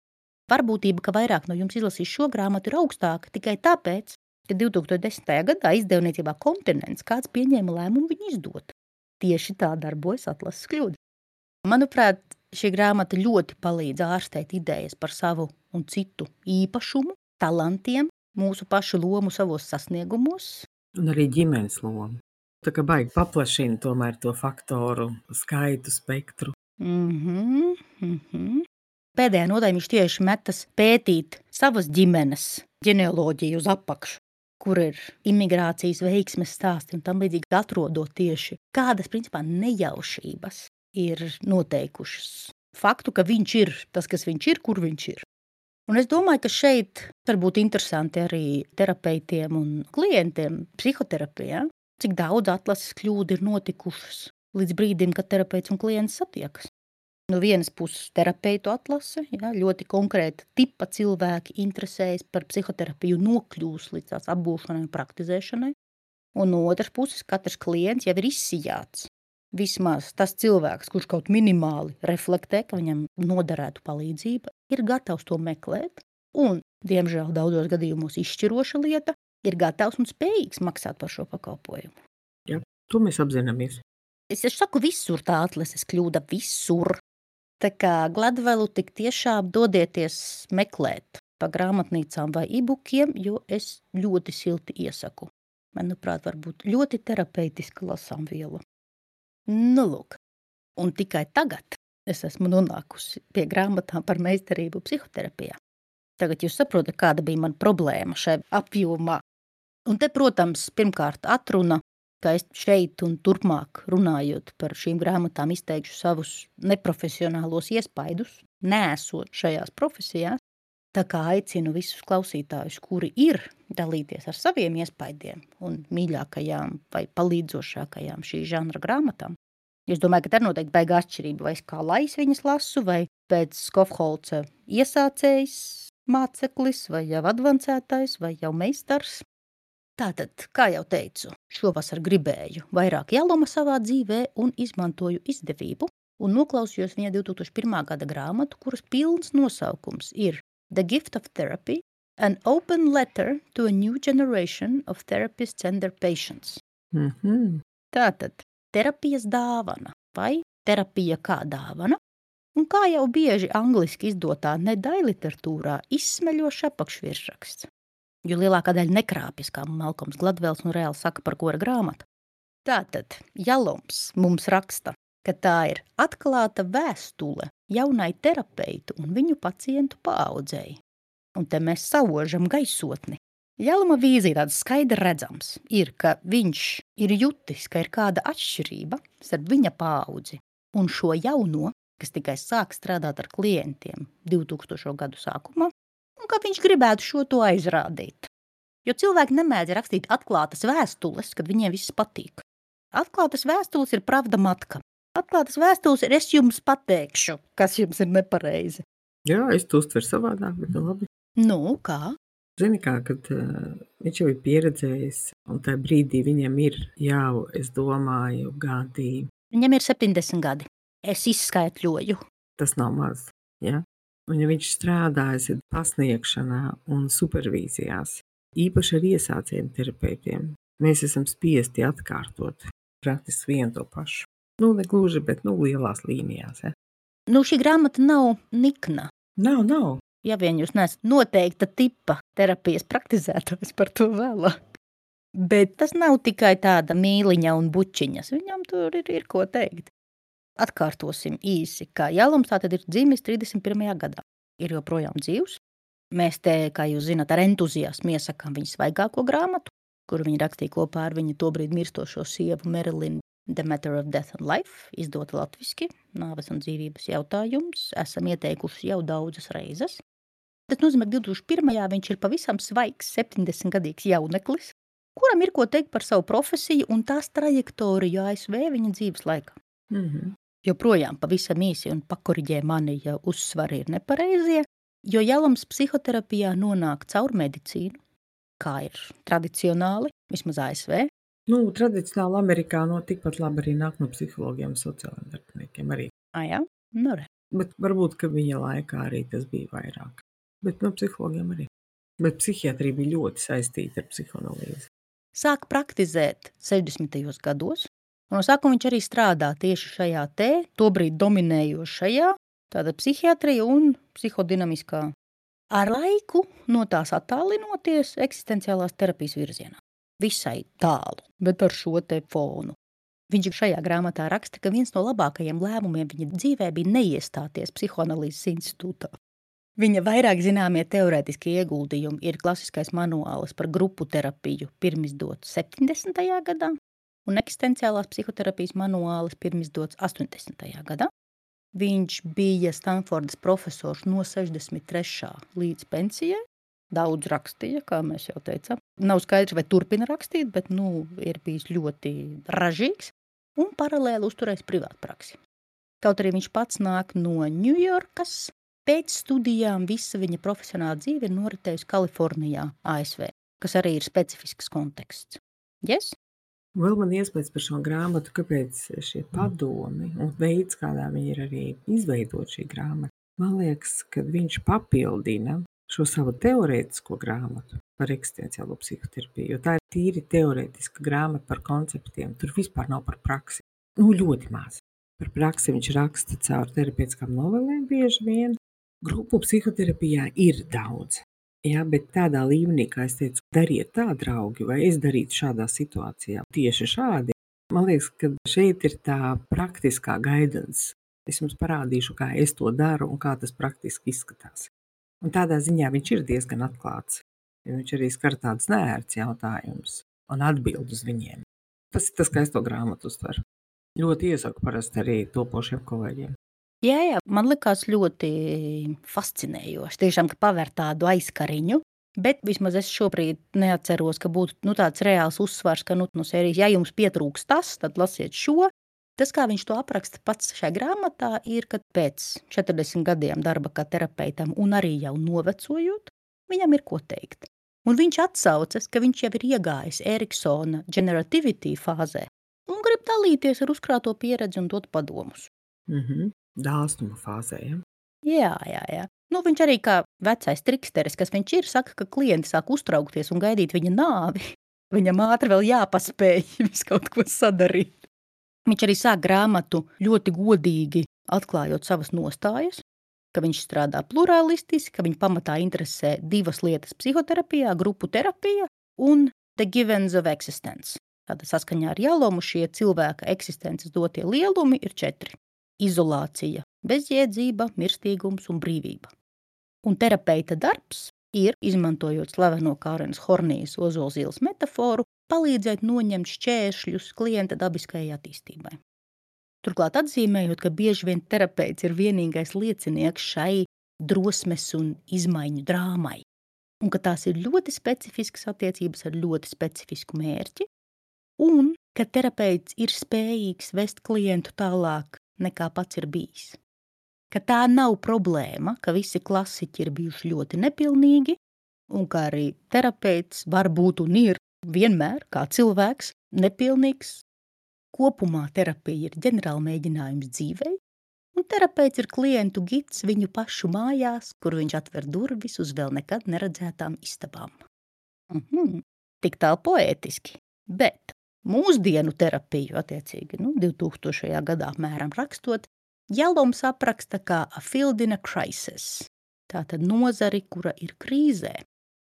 Varbūtība, ka vairāk no jums izlasīs šo grāmatu, ir augstāka tikai tāpēc, ka 2010. gadā izdevniecībā Kontinents kāds pieņēma lēmumu viņu izdot. Tieši tā darbojas atlases kļūda. Manuprāt, šī grāmata ļoti palīdz ārstēt idejas par savu un citu īpašumu, talantiem, mūsu pašu lomu savos sasniegumos. Un arī ģimenes lomu. Tā kā baigi paplašina tomēr to faktoru skaitu, spektru. Pēdējā nodaļā viņš tieši metas pētīt savas ģimenes ģenealoģiju uz apakšu, kur ir imigrācijas veiksmes stāsti un tam līdzīgi atrodot tieši kādas, principā, nejaušības ir noteikušas faktu, ka viņš ir tas, kas viņš ir, kur viņš ir. Un es domāju, ka šeit var būt interesanti arī terapeitiem un klientiem psihoterapijā, cik daudz atlases kļūdu ir notikušas līdz brīdim, kad terapeits un klients satiekas. No vienas puses terapeitu atlase, ļoti konkrēta tipa cilvēki interesējas par psihoterapiju nokļūs līdz tās apgūšanai un praktizēšanai. Un no otras puses katrs klients jau ir izsijāts. Vismaz tas cilvēks, kurš kaut minimāli reflektē, ka viņam noderētu palīdzība, ir gatavs to meklēt. Un, diemžēl, daudzos gadījumos izšķiroša lieta, ir gatavs un spējīgs maksāt par šo pakalpojumu. Jā, to mēs apzināmies. Es saku visur tā atlases kļūda, visur. Tā kā Gladvelu tik tiešām dodieties meklēt pa grāmatnīcām vai e-bookiem, jo es ļoti silti iesaku. Manuprāt, varbūt ļoti terapeitiska lasāmviela. Nu, lūk. Un tikai tagad es esmu nonākusi pie grāmatām par meistarību psihoterapijā. Tagad jūs saprotat, kāda bija mana problēma šai apjomā. Un te, protams, pirmkārt atruna, ka es šeit un turpmāk runājot par šīm grāmatām izteikšu savus neprofesionālos iespaidus, neesot šajās profesijās. Tā kā aicinu visus klausītājus, kuri ir, dalīties ar saviem iespaidiem un mīļākajām vai palīdzošākajām šī žanra grāmatām. Es domāju, ka tā ir noteikti baigā atšķirība, vai es kā lais viņas lasu, vai pēc Skofholca iesācējs māceklis, vai jau advancētais, vai jau meistars. Tātad, kā jau teicu, šovasar gribēju vairāk jāloma savā dzīvē un izmantoju izdevību un noklausījos viņa 2001. gada grāmatu, kuras pilns nosaukums ir The Gift of Therapy, an open letter to a new generation of therapists and their patients. Tātad, terapijas dāvana vai terapija kā dāvana, un kā jau bieži angliski izdotā nedaļliteratūrā izsmeļošs apakšvirsraksts. Jo lielākā daļa nekrāpjas, kā Malkoms Gladvels un reāli saka, par ko ir grāmata. Tātad, Jaloms mums raksta, ka tā ir atklāta vēstule jaunai terapeitu un viņu pacientu paaudzēji. Un te mēs saužam gaisotni. Jaloma vīzija tāds skaidri redzams ir, ka viņš ir jutis, ka ir kāda atšķirība starp viņa paaudzi un šo jauno, kas tikai sāk strādāt ar klientiem 2000. gadu sākumā, un ka viņš gribētu šo to aizrādīt. Jo cilvēki nemēdz rakstīt atklātas vēstules, kad viņiem viss patīk. Atklātas vēstules ir pravda matka. Atklātas vēstules ir es jums pateikšu, kas jums ir nepareizi. Jā, es to uztveru savādāk, bet labi. Nu, kā? Zini kā, kad viņš jau ir pieredzējis, un tajā brīdī viņam ir jau, es domāju, gadi. Viņam ir 70 gadi. Es izskaitļoju. Tas nav maz, ja? Un ja viņš strādājas pasniegšanā un supervīzijās, īpaši ar iesācējiem terapeitiem, mēs esam spiesti atkārtot praktiski vienu to pašu. Nu, ne gluži, bet lielās līnijās. Ja? Nu, šī grāmata nav nikna. Nav. Ja vien jūs neesat noteikta tipa terapijas praktizētājs, par to vēlāk. Bet tas nav tikai tāda mīliņa un bučiņas. Viņam tur ir ko teikt. Atkārtosim īsi, ka Jaloms tātad ir dzimis 31. gadā. Ir joprojām dzīvs. Mēs te, kā jūs zināt, ar entuziasmu iesakām viņa svaigāko grāmatu, kuru viņa rakstīja kopā ar viņa tobrīd mirstošo sievu Marilyn The Matter of Death and Life, izdota latviski, nāves un dzīvības jautājums, esam ieteikuši jau daudzas reizes. Tas nozīmē, ka 2001. viņš ir pavisam svaigs 70-gadīgs jauneklis, kuram ir ko teikt par savu profesiju un tās trajektoriju ASV viņa dzīves laikā. Joprojām pavisam īsi un pakoriģē mani, ja uzsvari ir nepareizie, jo Jaloms psihoterapijā nonāk caur medicīnu, kā ir tradicionāli, vismaz ASV. Tradicionāli Amerikā tikpat labi arī nāk no psihologiem un sociāliem darbiniekiem arī. Jā? Nu re. Bet varbūt, ka viņa laikā arī tas bija vairāk. Bet no psihologiem arī. Bet psihiatrija bija ļoti saistīta ar psihoanalīzi. Sāk praktizēt 60. gados, un no sākuma viņš arī strādā tieši šajā tobrīd dominējošajā, tāda psihiatrija un psihodinamiskā. Ar laiku no tās attālinoties eksistenciālās terapijas virzienā. Visai tālu, bet ar šo te fonu. Viņš šajā grāmatā raksta, ka viens no labākajiem lēmumiem viņa dzīvē bija neiestāties psihoanalīzes institūtā. Viņa vairāk zināmie teorētiskie ieguldījumi ir klasiskais manuāls par grupu terapiju pirmizdots 70. gadā un eksistenciālās psihoterapijas manuāls pirmizdots 80. gadā. Viņš bija Stanfordas profesors no 63. līdz pensijai. Daudz rakstīja, kā mēs jau teicām. Nav skaidrs, vai turpina rakstīt, bet ir bijis ļoti ražīgs un paralēli uzturējis privātpraksi. Kaut arī viņš pats nāk no Ņujorkas, pēc studijām visa viņa profesionāla dzīve ir noritējusi Kalifornijā, ASV, kas arī ir specifisks konteksts. Yes? Vēl man iespējas par šo grāmatu, kāpēc šie padomi un veids, kādā viņi ir arī izveidot šī grāmata. Man liekas, ka viņš papildina šo savu teorētisko grāmatu par eksistenciālo psihoterapiju, jo tā ir tīri teorētiska grāmata par konceptiem. Tur vispār nav par praksi. Ļoti maz. Par praksi viņš raksta caur terapeitiskām novelēm bieži vien. Grupu psihoterapijā ir daudz. Jā, bet tādā līmenī, kā es teicu, dariet tā, draugi, vai es darītu šādā situācijā tieši šādi. Man liekas, ka šeit ir tā praktiskā guidance. Es jums parādīšu, kā es to daru un kā tas praktiski izskatās. Un tādā ziņā viņš ir diezgan atklāts. Viņš arī skar tādus neērts jautājumus un atbild uz viņiem. Tas ir tas, kā es to grāmatu uztveru. Ļoti iesaku parasti arī topošiem kolēģiem. Jā, man likās ļoti fascinējoši. Tiešām, ka paver tādu aizkariņu, bet vismaz es šobrīd neatceros, ka būtu tāds reāls uzsvars, ka no sērijas, ja jums pietrūks tas, tad lasiet šo. Tas, kā viņš to apraksta pats šajā grāmatā, ir, ka pēc 40 gadiem darba kā terapeitam un arī jau novecojot, viņam ir ko teikt. Un viņš atsaucas, ka viņš jau ir iegājis Eriksona generativity fāzē un grib dalīties ar uzkrāto pieredzi un dot padomus. Dāsnuma fāzē, ja? Jā. Viņš arī kā vecais triksteris, kas viņš ir, saka, ka klienti sāk uztraukties un gaidīt viņa nāvi. Viņam ātri vēl jāpaspēj visu kaut ko sadarīt. Viņš arī sāk grāmatu ļoti godīgi atklājot savas nostājas, ka viņš strādā pluralistiski, ka viņa pamatā interesē divas lietas psihoterapijā, grupu terapija un the givens of existence. Tātad saskaņā ar Jalomu šie cilvēka eksistences dotie lielumi ir 4. Izolācija, bezjēdzība, mirstīgums un brīvība. Un terapeita darbs ir, izmantojot slaveno Kārenas Hornijas ozolzīles metaforu, palīdzēt noņemt šķēršļus klienta dabiskajai attīstībai. Turklāt atzīmējot, ka bieži vien terapeits ir vienīgais liecinieks šai drosmes un izmaiņu drāmai, un ka tās ir ļoti specifiskas attiecības ar ļoti specifisku mērķi, un ka terapeits ir spējīgs vest klientu tālāk nekā pats ir bijis. Ka tā nav problēma, ka visi klasiķi ir bijuši ļoti nepilnīgi, un ka arī terapeits var būt un ir vienmēr, kā cilvēks, nepilnīgs. Kopumā terapija ir ģenerāla mēģinājums dzīvei, un terapeits ir klientu gids viņu pašu mājās, kur viņš atver durvis uz vēl nekad neredzētām istabām. Tik tālu poētiski, bet mūsdienu terapiju, attiecīgi, 2000. gadā apmēram rakstot, Jaloms apraksta kā a field in a crisis, tātad nozari, kura ir krīzē,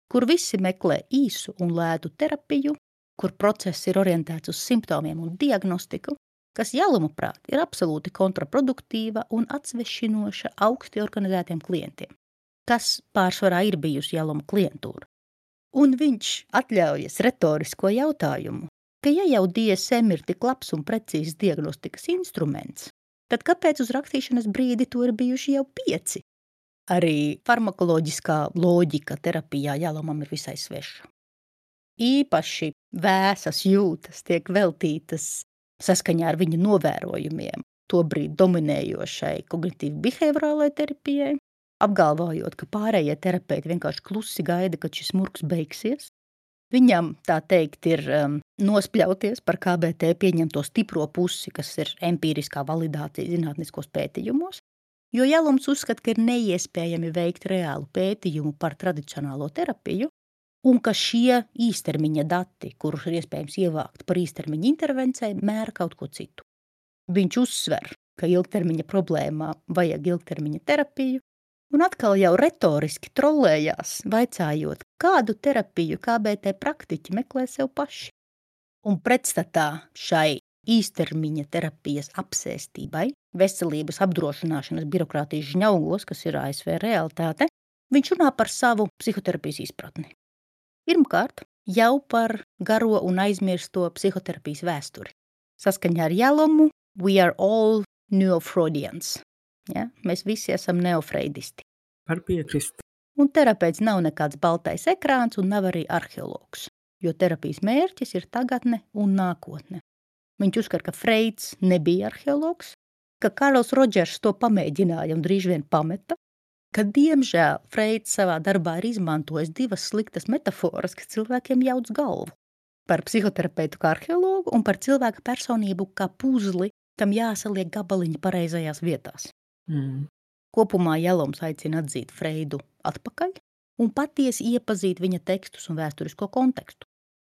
kur visi meklē īsu un lētu terapiju, kur process ir orientēts uz simptomiem un diagnostiku, kas Jaloma prāt ir absolūti kontraproduktīva un atsvešinoša augsti organizētiem klientiem, kas pārsvarā ir bijusi Jaloma klientūra. Un viņš atļaujas retorisko jautājumu, ka ja jau DSM ir tik labs un precīzs diagnostikas instruments, tad kāpēc uz rakstīšanas brīdi to ir bijuši jau 5? Arī farmakoloģiskā loģika terapijā Jalomam ir visai sveša. Īpaši vēsas jūtas tiek veltītas saskaņā ar viņu novērojumiem tobrīd dominējošai kognitīvi-behaviorālai terapijai, apgalvojot, ka pārējie terapeiti vienkārši klusi gaida, kad šis murgs beigsies. Viņam, tā teikt, ir nospļauties par KBT pieņemto stipro pusi, kas ir empīriskā validācija zinātniskos pētījumos, jo Jaloms uzskata, ka ir neiespējami veikt reālu pētījumu par tradicionālo terapiju, un ka šie īstermiņa dati, kurus ir iespējams ievākt par īstermiņa intervencēm, mēra kaut ko citu. Viņš uzsver, ka ilgtermiņa problēmā vajag ilgtermiņa terapiju, un atkal jau retoriski trollējās, vaicājot, kādu terapiju KBT praktiķi meklē sev paši. Un pretstatā šai īstermiņa terapijas apsēstībai, veselības apdrošināšanas birokrātijas žņaugos, kas ir ASV realitāte, viņš runā par savu psihoterapijas izpratni. Pirmkārt, jau par garo un aizmirsto psihoterapijas vēsturi. Saskaņā ar Jalomu, we are all neofreudians. Ja? Mēs visi esam neofreidisti. Var piekrist. Un terapeits nav nekāds baltais ekrāns un nav arī arheologs, jo terapijas mērķis ir tagadne un nākotne. Viņš uzskata, ka Freids nebija arheologs, ka Karls Rodžers to pamēģināja un drīz vien pameta, ka diemžēl Freids savā darbā ir izmantojis 2 sliktas metaforas, kas cilvēkiem jauc galvu. Par psihoterapeitu kā arheologu un par cilvēka personību kā puzli, kam jāsaliek gabaliņi pareizajās vietās. Kopumā Jaloms aicina atzīt Freidu atpakaļ un patiesi iepazīt viņa tekstus un vēsturisko kontekstu.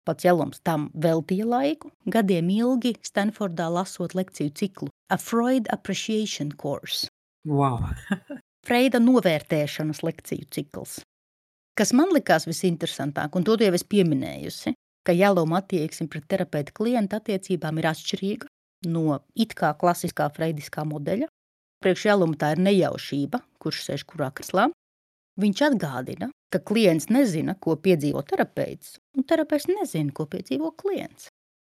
Pats Jelums tam veltīja laiku, gadiem ilgi Stanfordā lasot lekciju ciklu A Freud Appreciation Course. Wow! Freida novērtēšanas lekciju cikls. Kas man likās visinteresantāk, un to jau es pieminējusi, ka Jeluma attieksme pret terapeita klienta attiecībām ir atšķirīga no it kā klasiskā freidiskā modeļa. Priekš Jeluma tā ir nejaušība, kurš sēž kurā kreslā. Viņš atgādina, ka klients nezina, ko piedzīvo terapeits, un terapeits nezina, ko piedzīvo klients.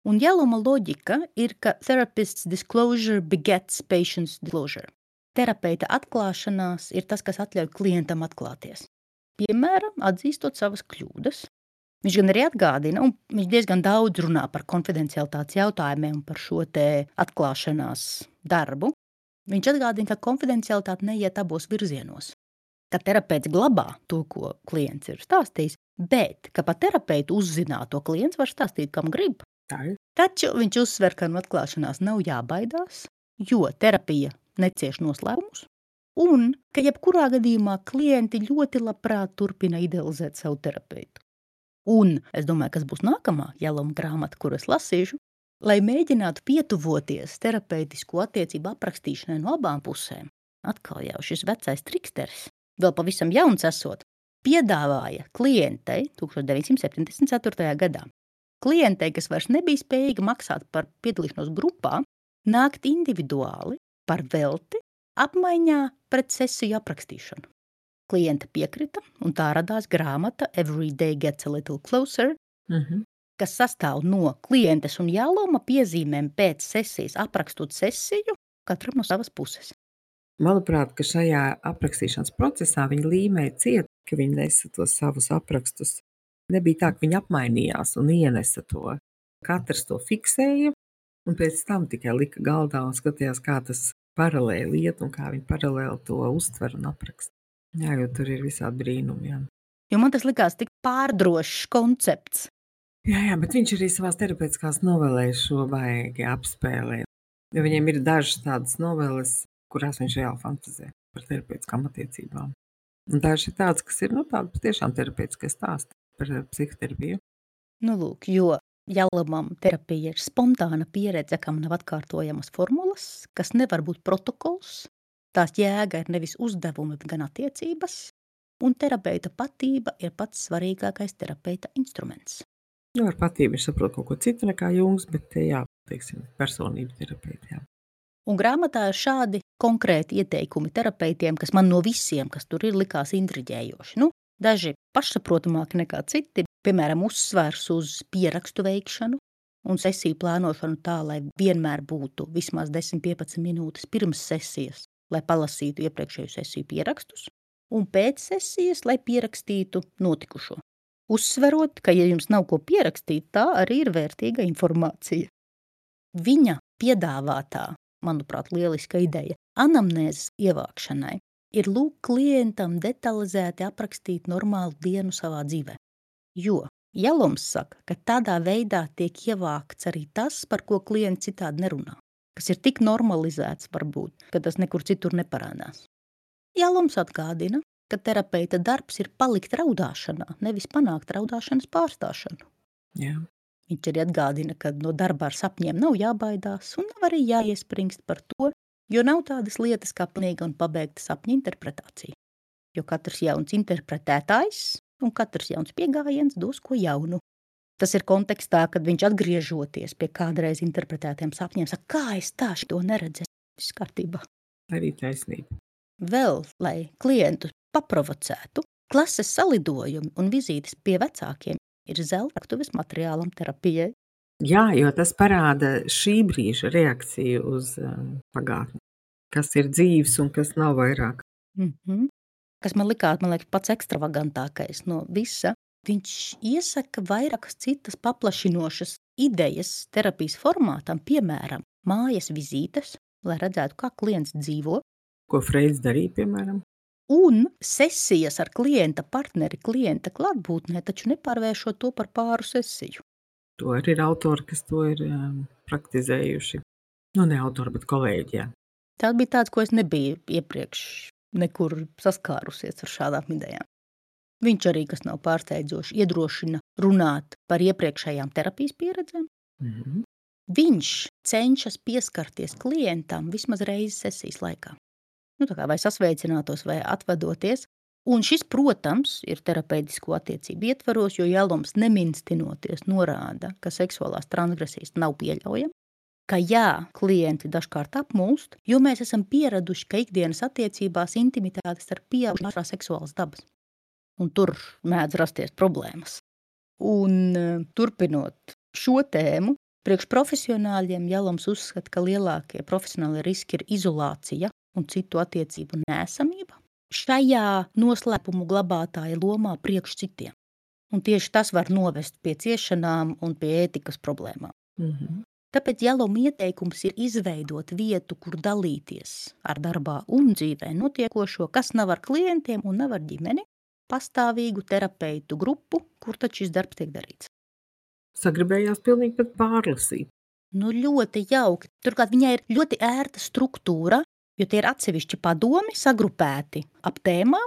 Un Jeluma loģika ir, ka therapist's disclosure begets patient's disclosure. Terapeita atklāšanās ir tas, kas atļauj klientam atklāties. Piemēram, atzīstot savas kļūdas. Viņš gan arī atgādina, un viņš diezgan daudz runā par konfidencialitātes jautājumiem un par šo te atklāšanās darbu. Viņš atgādina, ka konfidencialitāte neiet abos virzienos. Ka terapeits glabā to, ko klients ir stāstījis, bet ka pa terapeitu uzzināto klients var stāstīt, kam grib. Tā ir. Taču viņš uzsver, ka no atklāšanās nav jābaidās, jo terapija necieš noslēpumus, un ka jebkurā gadījumā klienti ļoti labprāt turpina idealizēt savu terapeitu. Un es domāju, kas būs nākamā Jeluma grāmata, kur es lasīšu, lai mēģinātu pietuvoties terapeitisko attiecību aprakstīšanai no abām pusēm. Atkal jau šis vecais triksteris, vēl pavisam jauns esot, piedāvāja klientei 1974. gadā. Klientei, kas vairs nebija spējīga maksāt par piedalīšanos grupā, nākt individuāli par velti apmaiņā pret sesiju aprakstīšanu. Klienta piekrita, un tā radās grāmata Every Day Gets a Little Closer, kas sastāv no klientes un Jeluma piezīmēm pēc sesijas, aprakstot sesiju katram no savas puses. Manuprāt, ka šajā aprakstīšanas procesā viņa līmēja ciet, ka viņa nesa tos savus aprakstus. Nebija tā, ka viņi apmainījās un ienesa to. Katrs to fiksēja, un pēc tam tikai lika galdā un skatījās, kā tas paralēli iet un kā viņi paralēli to uztver un apraksta. Jā, jo tur ir visādi brīnumi, jā. Jo man tas likās tik pārdrošs koncepts. Jā, bet viņš arī savās terapeitiskās novelēs šo baigi apspēlē. Jo viņiem ir dažas tādas noveles, kurās viņš reāli fantazē par terapeitiskām attiecībām. Un dažas ir tādas, kas ir, tāda patiešām terapeitiskie stāsti par psihoterapiju. Lūk, jo Jelumam terapija ir spontāna pieredze, kam nav atkārtojamas formulas, kas nevar būt protokols. Tās jēga ir nevis uzdevumi, gan attiecības, un terapeita patība ir pats svarīgākais terapeita instruments. Jo ar patību viņš saprot kaut ko citu nekā Jungs, bet jā, teiksim, personību terapeiti, jā. Un grāmatā ir šādi konkrēti ieteikumi terapeitiem, kas man no visiem, kas tur ir, likās intriģējoši. Daži pašsaprotamāki nekā citi, piemēram, uzsvers uz pierakstu veikšanu un sesiju plānošanu tā, lai vienmēr būtu vismaz 10-15 minūtes pirms sesijas, lai palasītu iepriekšēju sesiju pierakstus, un pēc sesijas, lai pierakstītu notikušo. Uzsverot, ka, ja jums nav ko pierakstīt, tā arī ir vērtīga informācija. Viņa piedāvātā, manuprāt, lieliska ideja anamnēzes ievākšanai ir lūk klientam detalizēti aprakstīt normālu dienu savā dzīvē. Jo Jelums saka, ka tādā veidā tiek ievākts arī tas, par ko klients citādi nerunā, kas ir tik normalizēts varbūt, ka tas nekur citur neparādās. Jelums atgādina, ka terapeita darbs ir palikt raudāšanā, nevis panākt raudāšanas pārstāšanu. Jā. Viņš arī atgādina, ka no darba ar sapņiem nav jābaidās un nav arī jāiespringst par to, jo nav tādas lietas kā pilnīga un pabeigta sapņa interpretācija. Jo katrs jauns interpretētājs un katrs jauns piegājiens dos ko jaunu. Tas ir kontekstā, kad viņš atgriežoties pie kādreiz interpretētiem sapņiem, saka, kā es tā šito neredzēju, viss kārtībā. Arī taisnība. Vēl, lai klientu paprovocētu, klases salidojumi un vizītes pie vecākiem ir zelta raktuves materiālam terapijai. Jā, jo tas parāda šī brīža reakciju uz pagātni. Kas ir dzīves un kas nav vairāk. Kas man liekas, pats ekstravagantākais no visa. Viņš iesaka vairākas citas paplašinošas idejas terapijas formātam, piemēram, mājas vizītes, lai redzētu, kā klients dzīvo. Ko Freids darīja, piemēram? Un sesijas ar klienta partneri, klienta klātbūtnē, taču nepārvēršot to par pāru sesiju. To arī ir autori, kas to ir praktizējuši. Ne autori, bet kolēģi, jā. Tas bija tāds, ko es nebiju iepriekš nekur saskārusies ar šādām idejām. Viņš arī, kas nav pārsteidzoši, iedrošina runāt par iepriekšējām terapijas pieredzēm. Viņš cenšas pieskarties klientam vismaz reizi sesijas laikā. Tā kā vai sasveicinātos, vai atvadoties. Un šis, protams, ir terapeitisko attiecību ietvaros, jo Jelums neminstinoties norāda, ka seksuālās transgresijas nav pieļaujama, ka jā, klienti dažkārt apmulst, jo mēs esam pieraduši, ka ikdienas attiecībās intimitātes ar pieaugušiem ir seksuālas dabas. Un tur mēdz rasties problēmas. Un turpinot šo tēmu, priekš profesionāļiem Jelums uzskata, ka lielākie profesionālie riski ir izolācija un citu attiecību neesamība šajā noslēpumu glabātāja lomā priekš citiem. Un tieši tas var novest pie ciešanām un pie ētikas problēmām. Tāpēc Jeluma ieteikums ir izveidot vietu, kur dalīties ar darbā un dzīvē notiekošo, kas nav ar klientiem un nav ar ģimeni, pastāvīgu terapeitu grupu, kur tad šis darbs tiek darīts. Sagribējās pilnīgi pat pārlasīt. Ļoti jauki. Turklāt viņai ir ļoti ērta struktūra, jo tie ir atsevišķi padomi sagrupēti ap tēmām.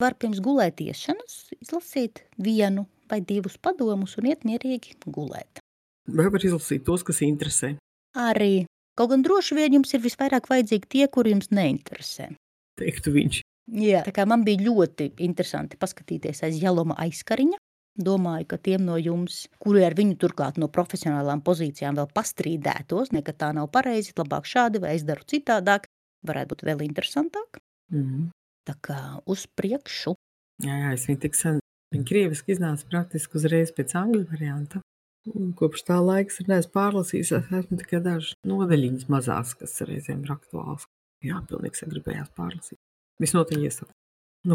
Var pirms gulētiešanas izlasīt 1 vai 2 padomus un iet mierīgi gulēt. Vai var izlasīt tos, kas interesē? Arī. Kaut gan droši vien jums ir visvairāk vajadzīgi tie, kuri jums neinteresē. Teiktu viņš. Jā, tā kā man bija ļoti interesanti paskatīties aiz Jeluma aizkariņa. Domāju, ka tiem no jums, kuri ar viņu turklāt no profesionālām pozīcijām vēl pastrīdētos, ka tā nav pareizi, labāk šādi vai es daru citādāk, varētu būt vēl interesantāk. Tā kā uz priekšu. Jā, es viņu tik sen. Viņa krieviski iznāca praktiski uzreiz pēc angļu varianta. Un kopš tā laiks ir neesmu pārlasījis, esmu tikai dažas nodaļiņas mazās, kas reizēm ir aktuāls. Jā, pilnīgi sagribējās pārlasīt. Visnotaļ iesaku.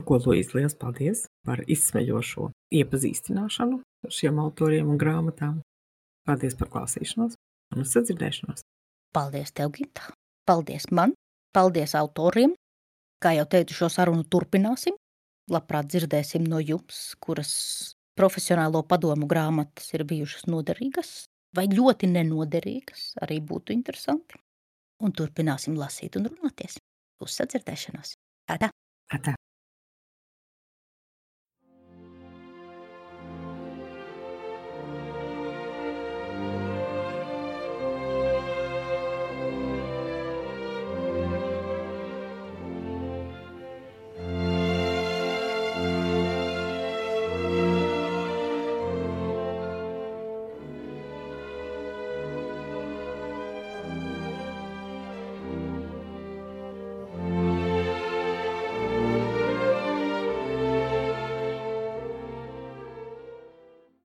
Ko, Luīz, liels paldies par izsmeļošo iepazīstināšanu ar šiem autoriem un grāmatām. Paldies par klausīšanos un uz sadzirdēšanos. Paldies tev, Gita. Paldies man. Paldies autoriem. Kā jau teicu, šo sarunu turpināsim. Labprāt dzirdēsim no jums, kuras profesionālo padomu grāmatas ir bijušas noderīgas vai ļoti nenoderīgas. Arī būtu interesanti. Un turpināsim lasīt un runāties. Uz sadzirdēšanos. Atā. Atā.